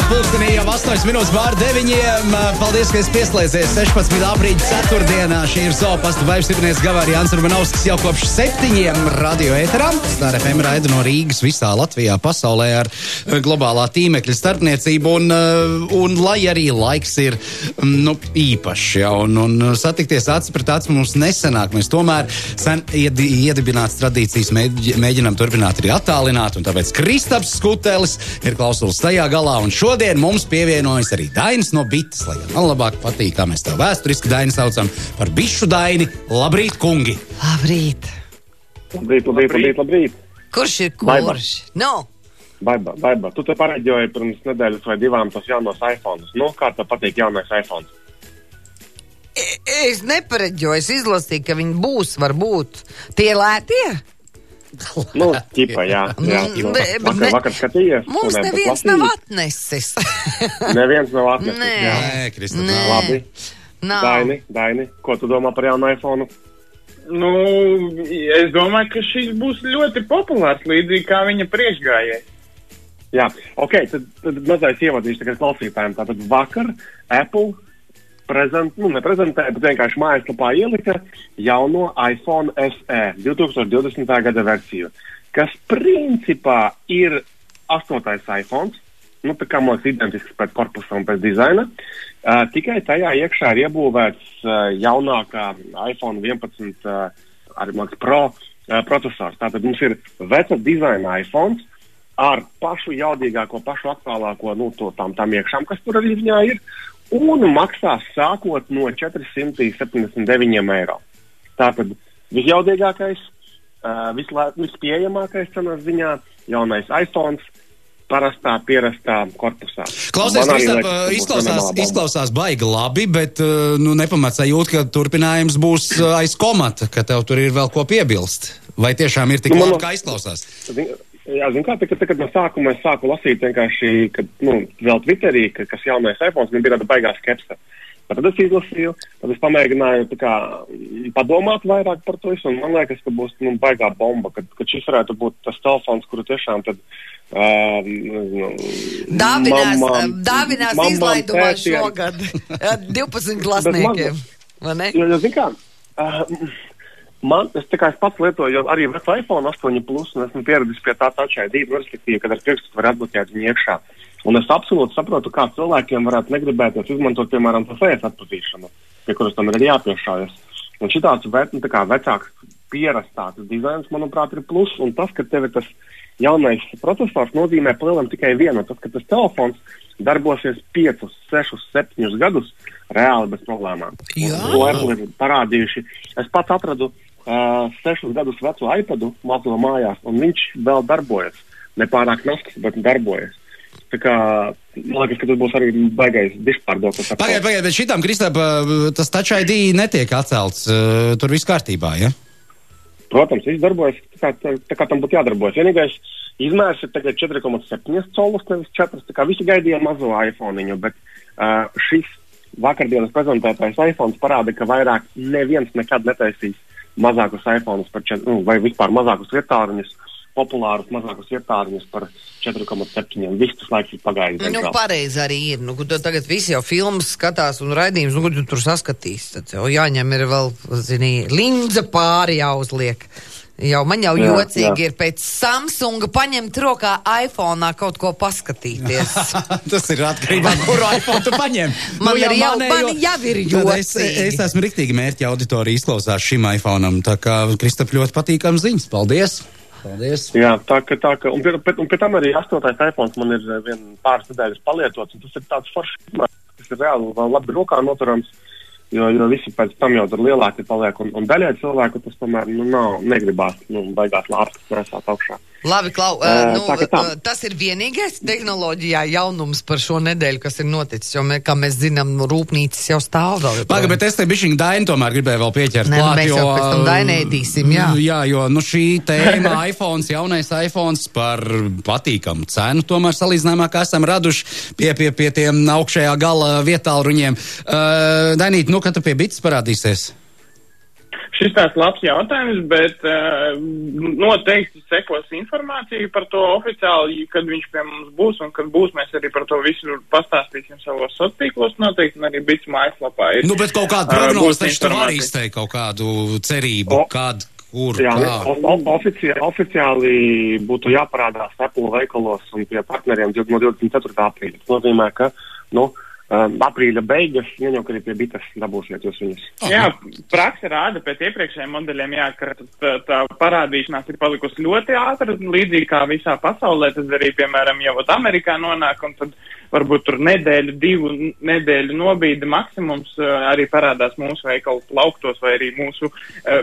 pulkstenī jau 8 minūtes pār 9. Paldies, ka esi pieslēdzies 16. aprīļa ceturtdienā. Šī ir Zopasta Vaivstiprinieks Gavāri Jānis Urbanovskis jau kopš 7 radio ēterā. Star FM raida no Rīgas visā Latvijā, pasaulē ar globālā tīmekļa starpniecību. Un lai arī laiks ir īpašs, ja, un satikties acis pret acis mums nesenāk. Mēs tomēr sen iedibināts tradīcijas mēģinām turpināt arī attālināt, un tāpēc Kristaps Skutelis ir klausulis tajā galā, un šodien mums pievienojas arī Dainis no Bites, lai man labāk patīk, kā mēs tev vēsturiski Daini saucam par bišu Daini. Labrīt, kungi! Labrīt! Labrīt! Kurš ir kurš? No! Baiba, tu te pareģoji pirms nedēļas vai divām tos jaunos iPhones. Nu, kā tev patīk jaunais iPhones? Es nepareģoju, es izlasīju, ka viņi būs, varbūt. Tie lētie? Nu, ķipa, jā. Vakar skatījies. Mums neviens nav atnesis. Neviens nav atnesis. Nē, Krista. Labi. Daini, ko tu domā par jaunu iPhone? Nu, es domāju, ka šis būs ļoti populārs, līdzīgi kā viņa priekšgājēji. Jā, ok, tad mazais ievadīšu tagad klausītājiem. Tātad vakar Apple neprezentēja, bet vienkārši mājaslapā ielika jauno iPhone SE 2020. gada versiju, kas principā ir 8. iPhone, tā kā mums identisks pēc korpusa un pēc dizaina, tikai tajā iekšā ir iebūvēts jaunākā iPhone 11 Pro procesors. Tātad mums ir veca dizaina iPhone ar pašu jaudīgāko, pašu aktuālāko, tām iekšām, kas tur arī viņā ir, un maksās sākot no 479 eiro. Tātad visjaudīgākais, vispieejamākais cenas ziņā jaunais iPhone pierastā korpusā. Klausies, izklausās baigi labi, bet nepamat sajūt, ka turpinājums būs aiz komata, ka tev tur ir vēl ko piebilst. Vai tiešām ir tik labi, kā izklausās? Jā, zin kā, kad no sākuma es sāku lasīt vienkārši, kad, vēl Twitterī, kas jaunais iPhones, man bija tāda baigā skepse. Tad es izlasīju, tad es pamēģināju padomāt vairāk par to visu, un man liekas, ka būs baigā bomba, kad šis varētu būt tas telefons, kuru tiešām tad dāvinās izlaidumā šogad 12 klasniekiem, vai ne? Jo, zin kā, es pats lietoju arī vecu iPhone 8 Plus, un esmu pieredzis pie tā Touch ID, respektīvi, kad ar pirkstu var atbloķēt viņu iekšā. Un es absolūti saprotu, kā cilvēkiem varētu negribēties izmantot, piemēram, to face atpazīšanu, pie kuras tam ir jāpiešājas. Un šitāds vecāks pierastāts dizains, manuprāt, ir plus, un tas, ka tev ir tas jaunais procesors, nozīmē palielam tikai vienu, tas, ka tas telefons darbosies 5, 6, 7 gadus reāli bez problēmām. To Apple ir parādījuši. Es pats atradu 6 gadus vecu iPadu mazo mājās, un viņš vēl darbojas. Nepārāk nasks, bet darbojas. Tā kā, man liekas, ka tas būs arī baigais dišpārdoklis. Pagaid, bet šitām, Kristap, tas Touch ID netiek atcelts, tur viss kārtībā, ja? Protams, viss darbojas tā kā tam būtu jādarbojas. Vienīgais izmērs ir tagad 4,7 colus, nevis 4, tā kā visi gaidīja mazo iPhone-iņu, bet šis vakardienas prezentētais iPhones parāda, ka vairāk neviens nekad netaisīs mazākus iPhones par 4, vai vispār mazākus vietāruņus, populārus mazākus vietāruņus par 4,7. Viss tas laiks ir pagājis. Pareizi arī ir. Tagad visi jau filmas skatās un raidījums, ko tu tur saskatīs. Tad jau jāņem ir vēl, linza pāri jāuzliek. Man jau jocīgi ir pēc Samsunga paņemt rokā iPhone'ā kaut ko paskatīties. Tas ir atkarībā, kuru iPhone tu paņem. Man jau ir jocīgi. Es esmu riktīgi mērķa auditorija izklausās šim iPhone'am, tā kā Kristap ļoti patīkam ziņas. Paldies! Jā, tā ka, un pie tam arī 8. iPhones man ir pāris nedēļas palietots, un tas ir tāds foršs, kas ir reāli vēl labi rokā noturams, jo visi pēc tam jau tur lielāki paliek, un daļai cilvēku tas tomēr, negribās, baigās lārstas nesāt augšā. Labi, Klau, tas ir vienīgais tehnoloģijā jaunums par šo nedēļu, kas ir noticis, jo, kā mēs zinām, rūpnīcas jau stāv vēl. Paga, bet es te bišķiņ Daini tomēr gribēju vēl pieķert klāt, mēs jau pēc tam Dainēdīsim, jā. Jā, jo, šī tēma iPhones, jaunais iPhones par patīkamu cenu, tomēr salīdzinājumā, kā esam raduši pie tiem augšējā gala vietālruņiem. Dainīt, kad tu pie Bites parādīsies? Šis tāds labs jautājums, bet noteikti sekos informāciju par to oficiāli, kad viņš pie mums būs, un kad būs, mēs arī par to visu pastāstīsim savos sociālos noteikti, un arī Bits mājaslapā ir. Nu, bet kaut kādu prognozi taču tu vari izteikt, kaut kādu cerību, kur, jā, kā. Oficiāli būtu jāparādās Apple veikalos un pie partneriem no 24. aprīļa. Tas nozīmē, ka, aprīļa beigas, jau, kad ir pie Bitas dabūsiet jūs viņus. Jā, praksa rāda pēc iepriekšējiem modeļiem, jā, ka tā parādīšanās ir palikusi ļoti ātra, līdzīgi kā visā pasaulē, tas arī, piemēram, jau Amerikā nonāk, un tad varbūt tur nedēļu, 2 nedēļu nobīde maksimums arī parādās mūsu veikalu plauktos vai arī mūsu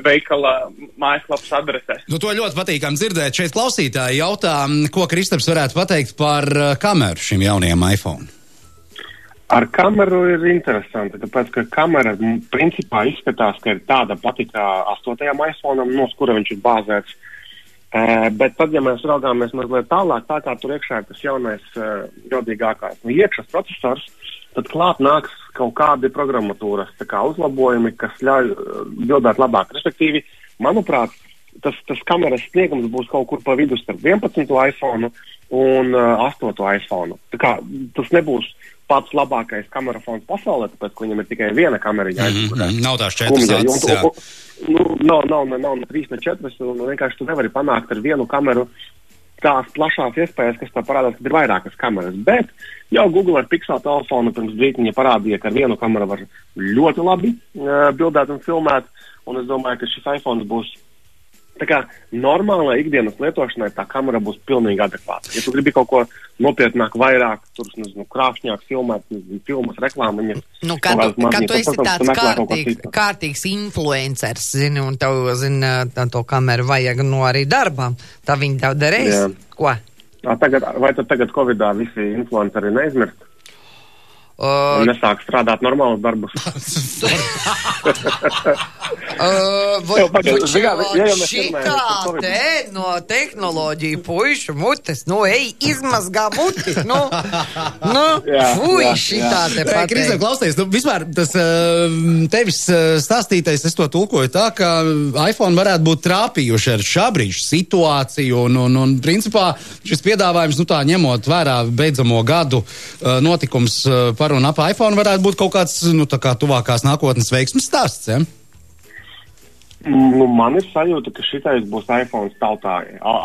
veikala mājaslapas adresēs. Nu, to ļoti patīkam dzirdēt. Šeit klausītāji jautā, ko Kristaps varētu pateikt par kameru šim jaunajam iPhone. Ar kameru ir interesanti, tāpēc, ka kamera principā izskatās, ka ir tāda pati kā 8. iPhone'am, no kura viņš ir bāzēts. Bet tad, ja mēs raugāmies mazliet tālāk, tā kā tur iekšā ir tas jaunais jodīgākais iekšas procesors, tad klāt nāks kaut kādi programmatūras uzlabojumi, kas ļauj bildēt labāk. Respektīvi, manuprāt, tas kameras sniegums būs kaut kur pa vidu starp 11. iPhone un 8. iPhone. Tā kā tas nebūs pats labākais kamerafons pasaulē, tāpēc, ka viņam ir tikai viena kamera jāizgudē. Nav tās 4 acis, jā. Nav 3 ne 4, un vienkārši tu nevari panākt ar vienu kameru tās plašās iespējas, kas tā parādās, kad ir vairākas kameras. Bet jau Google ar Pixel telefonu pirms brītiņa parādīja, ka ar vienu kameru var ļoti labi bildēt un filmēt, un es domāju, ka šis iPhone būs tā kā normālai ikdienas lietošanai tā kamera būs pilnīgi adekvāta. Ja tu gribi kaut ko nopietnāk, vairāk, tur, krāšņāk filmēt, filmas, reklāmiņas. Nu, kad tu esi tāds kārtīgs influencers, zini, un tev, zini, to kameru vajag arī darbām, tā viņi tev darīs? Jā. Ko? Vai tad tagad Covidā visi influenceri neizmirst? Un nesāk strādāt normālus darbus. Šitā te no tehnoloģiju puišu mutes, izmazgā muti, fuj, šitā te pateikt. Kristēn, klausies, vispār tas tevis stāstītais, es to tulkoju tā, ka iPhone varētu būt trāpījuši ar šā brīža situāciju, un principā šis piedāvājums, tā ņemot vērā beidzamo gadu notikums par un ap iPhone varētu būt kaut kāds, tā kā tuvākās nākotnes veiksmes stāsts, ja? Man ir sajūta, ka šitais būs iPhone tautā,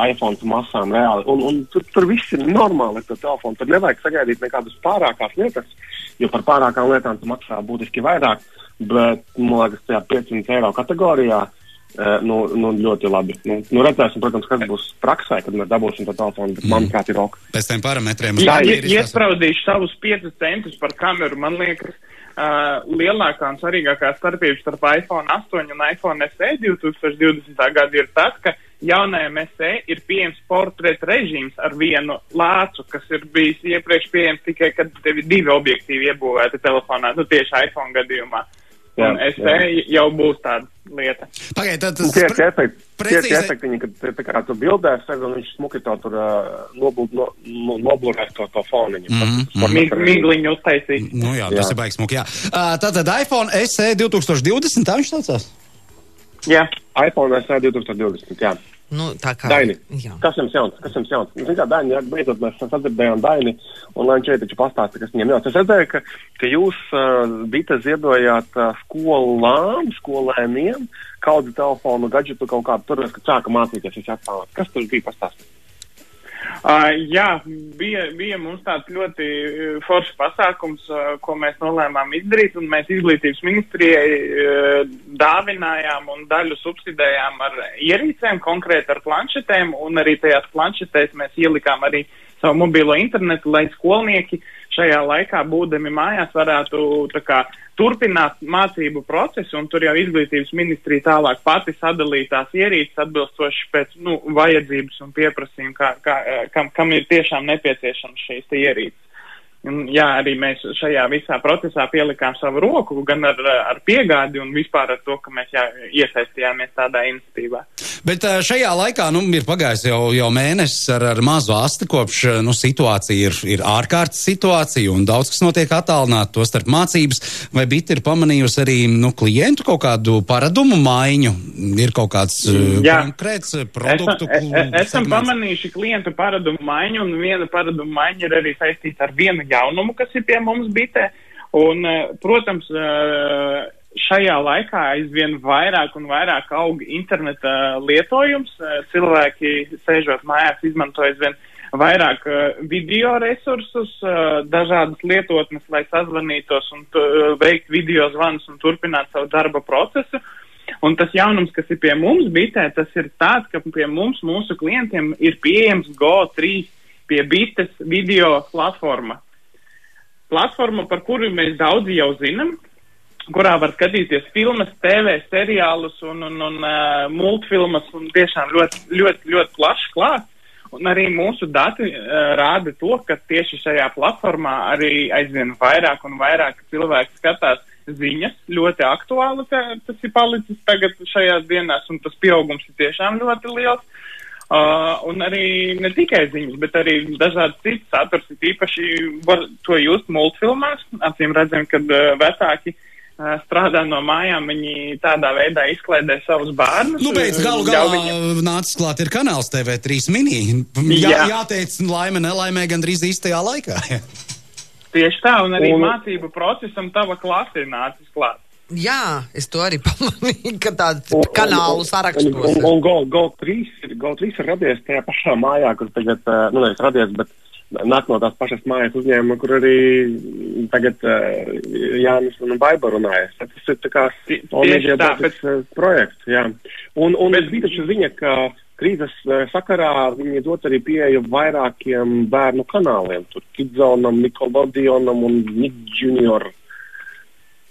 iPhone masām reāli, un tur viss ir normāli ar to telefonu, tur nevajag sagaidīt nekādas pārākās lietas, jo par pārākām lietām tu maksā būtiski vairāk, bet, man liekas, tajā 500 eiro kategorijā, ļoti labi. Redzēsim, protams, kas būs praksē, kad mēs dabūsim to telefonu, bet manuprāt ir ok. Pēc tiem parametriem. Jā, iespraudīšu savus 5 centus par kameru, man liekas, lielākā un svarīgākā starpība starp iPhone 8 un iPhone SE 2020. Gada ir tas, ka jaunajam SE ir pieejams portreta režīms ar vienu lācu, kas ir bijis iepriekš pieejams tikai, kad tev ir 2 objektīvi iebūvēti telefonā, tieši iPhone gadījumā. Un SE jau būs tāda lieta. Pagaid, Tie efektiņi, kad tā kā tu bildēs, un viņš smuki to tur noblurēs to foniņu. Migliņu uztaisīt. Jā, tas ir baigs smuki, jā. Tātad iPhone SE 2020, tā viņš saucās? Jā. iPhone SE 2020, jā. Tā kā. Daini, kas jums jauns? Daini, beidzot mēs sadzirdējām Daini, un lai viņš šeit taču pastāsta, kas viņam jauns. Es redzēju, ka jūs Bita ziedojāt skolēniem kādu telefonu, gadžetu kaut kādu tur, kad sāka mācīties visi atpānāt. Kas tur bija pastāstīt? Jā, bija mums tāds ļoti foršs pasākums, ko mēs nolēmām izdarīt, un mēs izglītības ministrijai dāvinājām un daļu subsidējām ar ierīcēm, konkrēti ar planšetēm, un arī tajās planšetēs mēs ielikām arī savu mobilo internetu, lai skolnieki šajā laikā, būdami mājās, varētu turpināt mācību procesu, un tur jau izglītības ministrija tālāk pati sadalītās ierīces atbilstoši pēc vajadzības un pieprasījuma, kam ir tiešām nepieciešams šīs ierīces. Jā, arī mēs šajā visā procesā pielikām savu roku, gan ar piegādi un vispār ar to, ka mēs iesaistījāmies tādā iniciatīvā. Bet šajā laikā, ir pagājis jau mēnesis ar mazu asti, kopš, situācija ir ārkārtas situācija un daudz, kas notiek attālināt, to starp mācības, vai Bita ir pamanījusi arī, klientu kaut kādu paradumu maiņu? Ir kaut kāds konkrēts produktu Esam pamanījuši klientu paradumu maiņu, un viena paradumu maiņa ir arī saistīta ar vienu jaunumu, kas ir pie mums Bitē. Un, protams, šajā laikā aizvien vairāk un vairāk aug interneta lietojums. Cilvēki, sēžot mājās, izmanto aizvien vairāk video resursus, dažādas lietotnes, lai sazvanītos un veikt video zvanus un turpināt savu darba procesu. Un tas jaunums, kas ir pie mums Bitē, tas ir tāds, ka pie mums, mūsu klientiem, ir pieejams Go3 pie Bites video platforma. Platforma, par kuru mēs daudzi jau zinām, kurā var skatīties filmas, TV, seriālus un multfilmas un tiešām ļoti plašs klāsts. Un arī mūsu dati rāda to, ka tieši šajā platformā arī aizvien vairāk un vairāk cilvēki skatās ziņas, ļoti aktuāli, tas ir palicis tagad šajās dienās, un tas pieaugums ir tiešām ļoti liels. Un arī ne tikai ziņas, bet arī dažādi citi saturs, īpaši var to just multfilmās. Acīm redzam, kad vecāki strādā no mājām, viņi tādā veidā izklaidē savus bērnus. Pēc galu galā nācis klāt ir kanāls TV3 mini. Jāteic laime, nelaimē gandrīz īstajā laikā. Tieši tā, un arī mācību procesam tava klase ir nācis klāt. Jā, es to arī pamanīju, ka tādu kanālu sarakstos. Un Go3 ir radies tajā pašā mājā, kur tagad, nevis radies, bet nāk no tās pašas mājas uzņēmuma, kur arī tagad Jānis un Baiba runājas. Tas ir tā kā projekts, jā. Un es biju taču ziņa, ka krīzes sakarā viņi dot arī pieeju vairākiem bērnu kanāliem. Tur Kidzonam, Nickelodeonam un Nick Junior.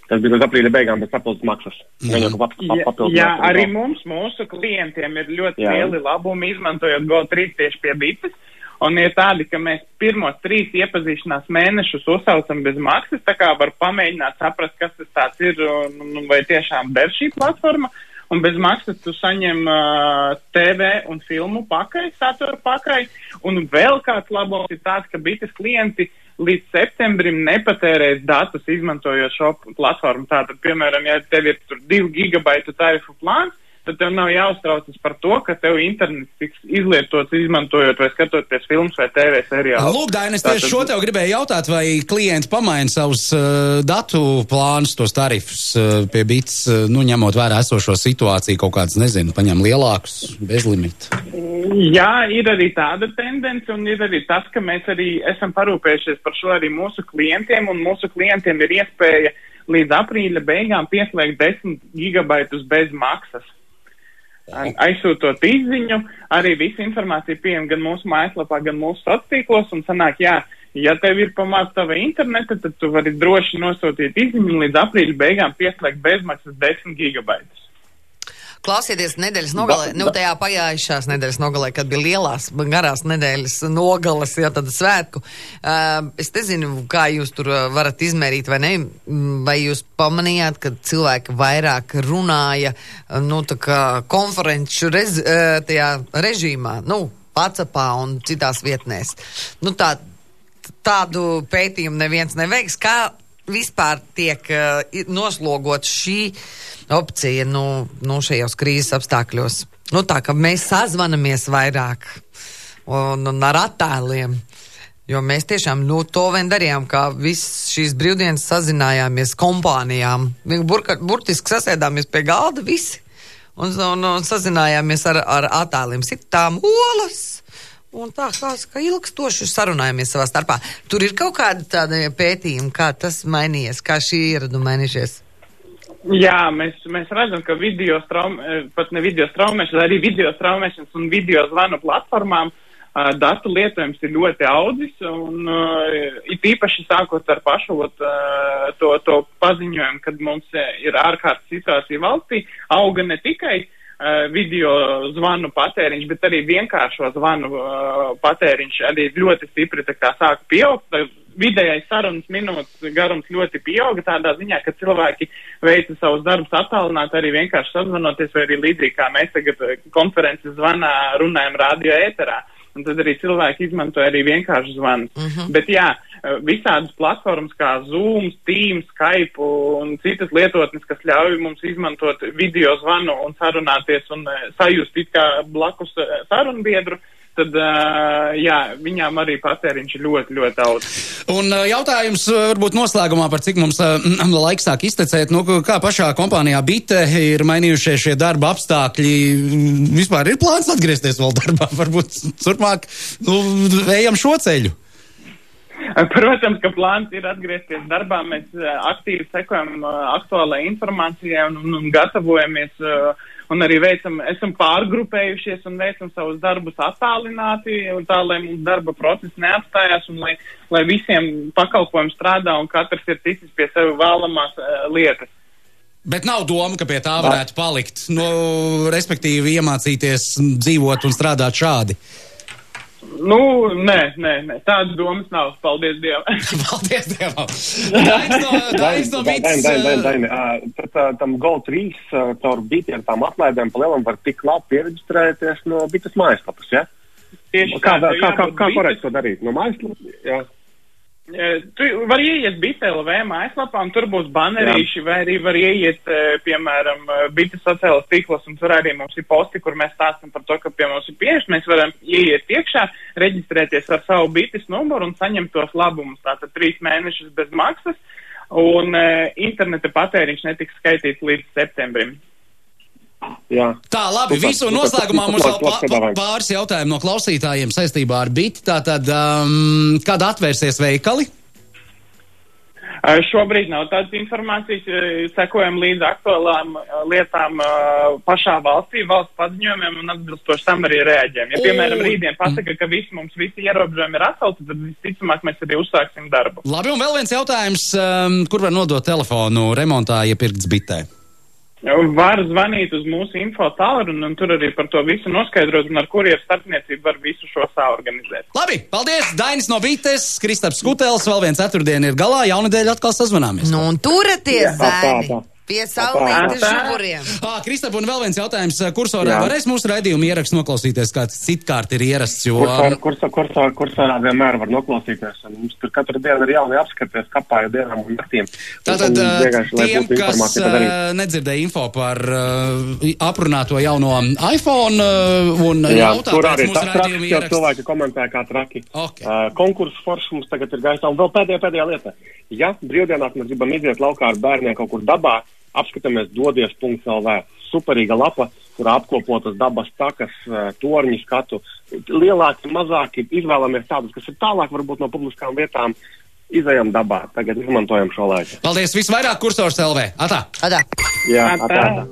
Tas bija līdz aprīļa beigām, bet papildus maksas. Jā, arī mūsu klientiem ir ļoti lieli labumi, izmantojot Go3 tieši pie Bites. Un ir tādi, ka mēs pirmos 3 iepazīšanās mēnešus uzsaucam bez maksas, tā kā var pamēģināt saprast, kas tas tāds ir un vai tiešām der šī platforma. Un bez maksas tu saņem TV un filmu pakaļ, satura pakaļ. Un vēl kāds labums ir tāds, ka Bites klienti līdz septembrim nepatērēs datus izmantojot šo platformu. Tātad, piemēram, ja tev ir tur 2 gigabaitu tarifu plāns, tad tev nav jāuztraucas par to, ka tev internets tiks izlietots izmantojot vai skatoties filmas vai TV seriālus. Lūk, Dainis, tieši šo tev gribēju jautāt, vai klienti pamaina savus datu plānus, tos tarifus pie Bites, ņemot vērā esošo situāciju, kaut kāds, paņem lielākus, bezlimitu. Jā, ir arī tāda tendence, un ir arī tas, ka mēs arī esam parūpējušies par šo arī mūsu klientiem, un mūsu klientiem ir iespēja līdz aprīļa beigām pieslēgt 10 gigabaitus bez maksas. Aizsūtot izziņu, arī visa informācija pieejama gan mūsu mājaslapā, gan mūsu sociālos tīklos, un sanāk, ja tev ir pamāc tava interneta, tad tu vari droši nosūtīt izziņu un līdz aprīļa beigām pieslēgt bezmaksas 10 gigabaitus. Klausieties nedēļas nogalē, tajā pagājušās nedēļas nogalē, kad bija lielās, garās nedēļas nogales, tad svētku. Es nezinu, kā jūs tur varat izmērīt vai ne, vai jūs pamanījāt, ka cilvēki vairāk runāja, tā kā konferenču tajā režīmā, WhatsAppā un citās vietnēs. Tādu pētījumu neviens neveiks, kā vispār tiek noslogot šī opcija šajos krīzes apstākļos. Tā, ka mēs sazvanamies vairāk un ar attēliem, jo mēs tiešām to vien darījām, kā visas šīs brīvdienas sazinājāmies kompānijām. Burtiski sasēdāmies pie galda visi un sazinājāmies ar attēliem. Sitām olas. Un tā kā ilgstoši sarunājamies savā starpā. Tur ir kaut kāda tāda pētījuma, kā tas mainījies, kā šī ieraduma mainījušies? Jā, mēs redzam, ka pat ne video straumēšanas, arī video straumēšanas un video zvanu platformām datu lietojums ir ļoti audzis, un it īpaši sākot ar pašu to paziņojumu, kad mums ir ārkārtas situācija valstī, auga ne tikai video zvanu patēriņš, bet arī vienkāršo zvanu patēriņš arī ļoti stipri tā kā sāka pieaugt. vidējais sarunas minūtes garums ļoti pieauga tādā ziņā, ka cilvēki veica savus darbus attālināt, arī vienkārši sazvanoties, vai arī līdzīgi kā mēs tagad konferences zvanā runājam radio ēterā. Un tad arī cilvēki izmantoja arī vienkārši zvanus. Bet jā, visādas platformas kā Zoom, Teams, Skype un citas lietotnes, kas ļauj mums izmantot video zvanu un sarunāties un sajust it kā blakus sarunbiedru, tad, jā, viņām arī patēriņš ir ļoti, ļoti daudz. Un jautājums varbūt noslēgumā par cik mums laiks sāk iztecēt, kā pašā kompānijā Bite ir mainījušies šie darba apstākļi, vispār ir plāns atgriezties vēl darbā, varbūt turpmāk, ejam šo ceļu. Protams, ka plāns ir atgriezties darbā, mēs aktīvi sekojam aktuālai informācijai un gatavojamies un arī esam pārgrupējušies un veicam savus darbus attālināti, un tā, lai mums darba process neapstājās un lai visiem pakalpojumi strādā un katrs ir ticis pie sevi vēlamās lietas. Bet nav doma, ka pie tā varētu palikt, respektīvi iemācīties dzīvot un strādāt šādi. Nē, tādas domas nav, paldies Dievam. Paldies Dievam. Dainis no Bites. Daini, tam GO3 caur Biti ar tām atlaidēm pa lielam var tik labi pieregistrēties no Bites mājaslapas, ja? Tieši kā korekti to darīt? No mājaslapas? Jā. Tu var ieiet Bite.lv mājaslapā, un tur būs banerīši, vai arī var ieiet, piemēram, Bite sociālas tīklos, un tur arī mums ir posti, kur mēs stāstam par to, ka pie mums ir pieejas. Mēs varam ieiet iekšā, reģistrēties ar savu Bites numuru un saņemt tos labumus. Tātad 3 mēnešus bez maksas, un interneta patēriņš netiks skaitīts līdz septembrim. Jā. Tā, labi, visu noslēgumā mums vēl pāris jautājumu no klausītājiem saistībā ar Biti. Tātad, kad atvērsies veikali? Šobrīd nav tādas informācijas, sekojam līdz aktuālām lietām pašā valstī, valsts paziņojumiem un atbilstoši tam arī reaģējam. Ja, piemēram, rītdien pasaka, ka mums visi ierobežojumi ir atcelti, tad visticamāk mēs arī uzsāksim darbu. Labi, un vēl viens jautājums, kur var nodot telefonu remontā iepirkts Bitē? Var zvanīt uz mūsu info tālruni un tur arī par to visu noskaidrot un ar kurieru starpniecību var visu šo saorganizēt. Labi, paldies! Dainis no Bites, Kristaps Skutels, vēl viens ceturtdiena ir galā, jaunadēļ atkal sazvanāmies. Nu, un turaties, zēni! Pie saulītes žuburiem. Kristap, un vēl viens jautājums. Kursorā varēs mūsu raidījumu ierakstu noklausīties, kāds citkārt ir ierasts, jo... Kursorā vienmēr var noklausīties. Mums tur katru dienu ir jauni apskaties kapāju dienām un naktīm. Tātad tiem, kas nedzirdēja info par aprunāto jauno iPhone un jautā pēc mūsu raidījumu ierakstu. Cilvēki komentē kā traki. Okay. Konkursu forši mums tagad ir gaisā. Un vēl pēdējā lieta. Ja brīvdienās mēs gribam iziet laukā ar bērniem kaut kur dabā, apskatāmies dodies.lv. Superīga lapa, kurā apkopotas dabas takas, torņi skatu. Lielāki, mazāki, izvēlamies tādus, kas ir tālāk varbūt no publiskām vietām. Izejam dabā, tagad izmantojam šo laiku. Paldies, visvairāk Kursors LV. Atā! Atā! Jā, atā.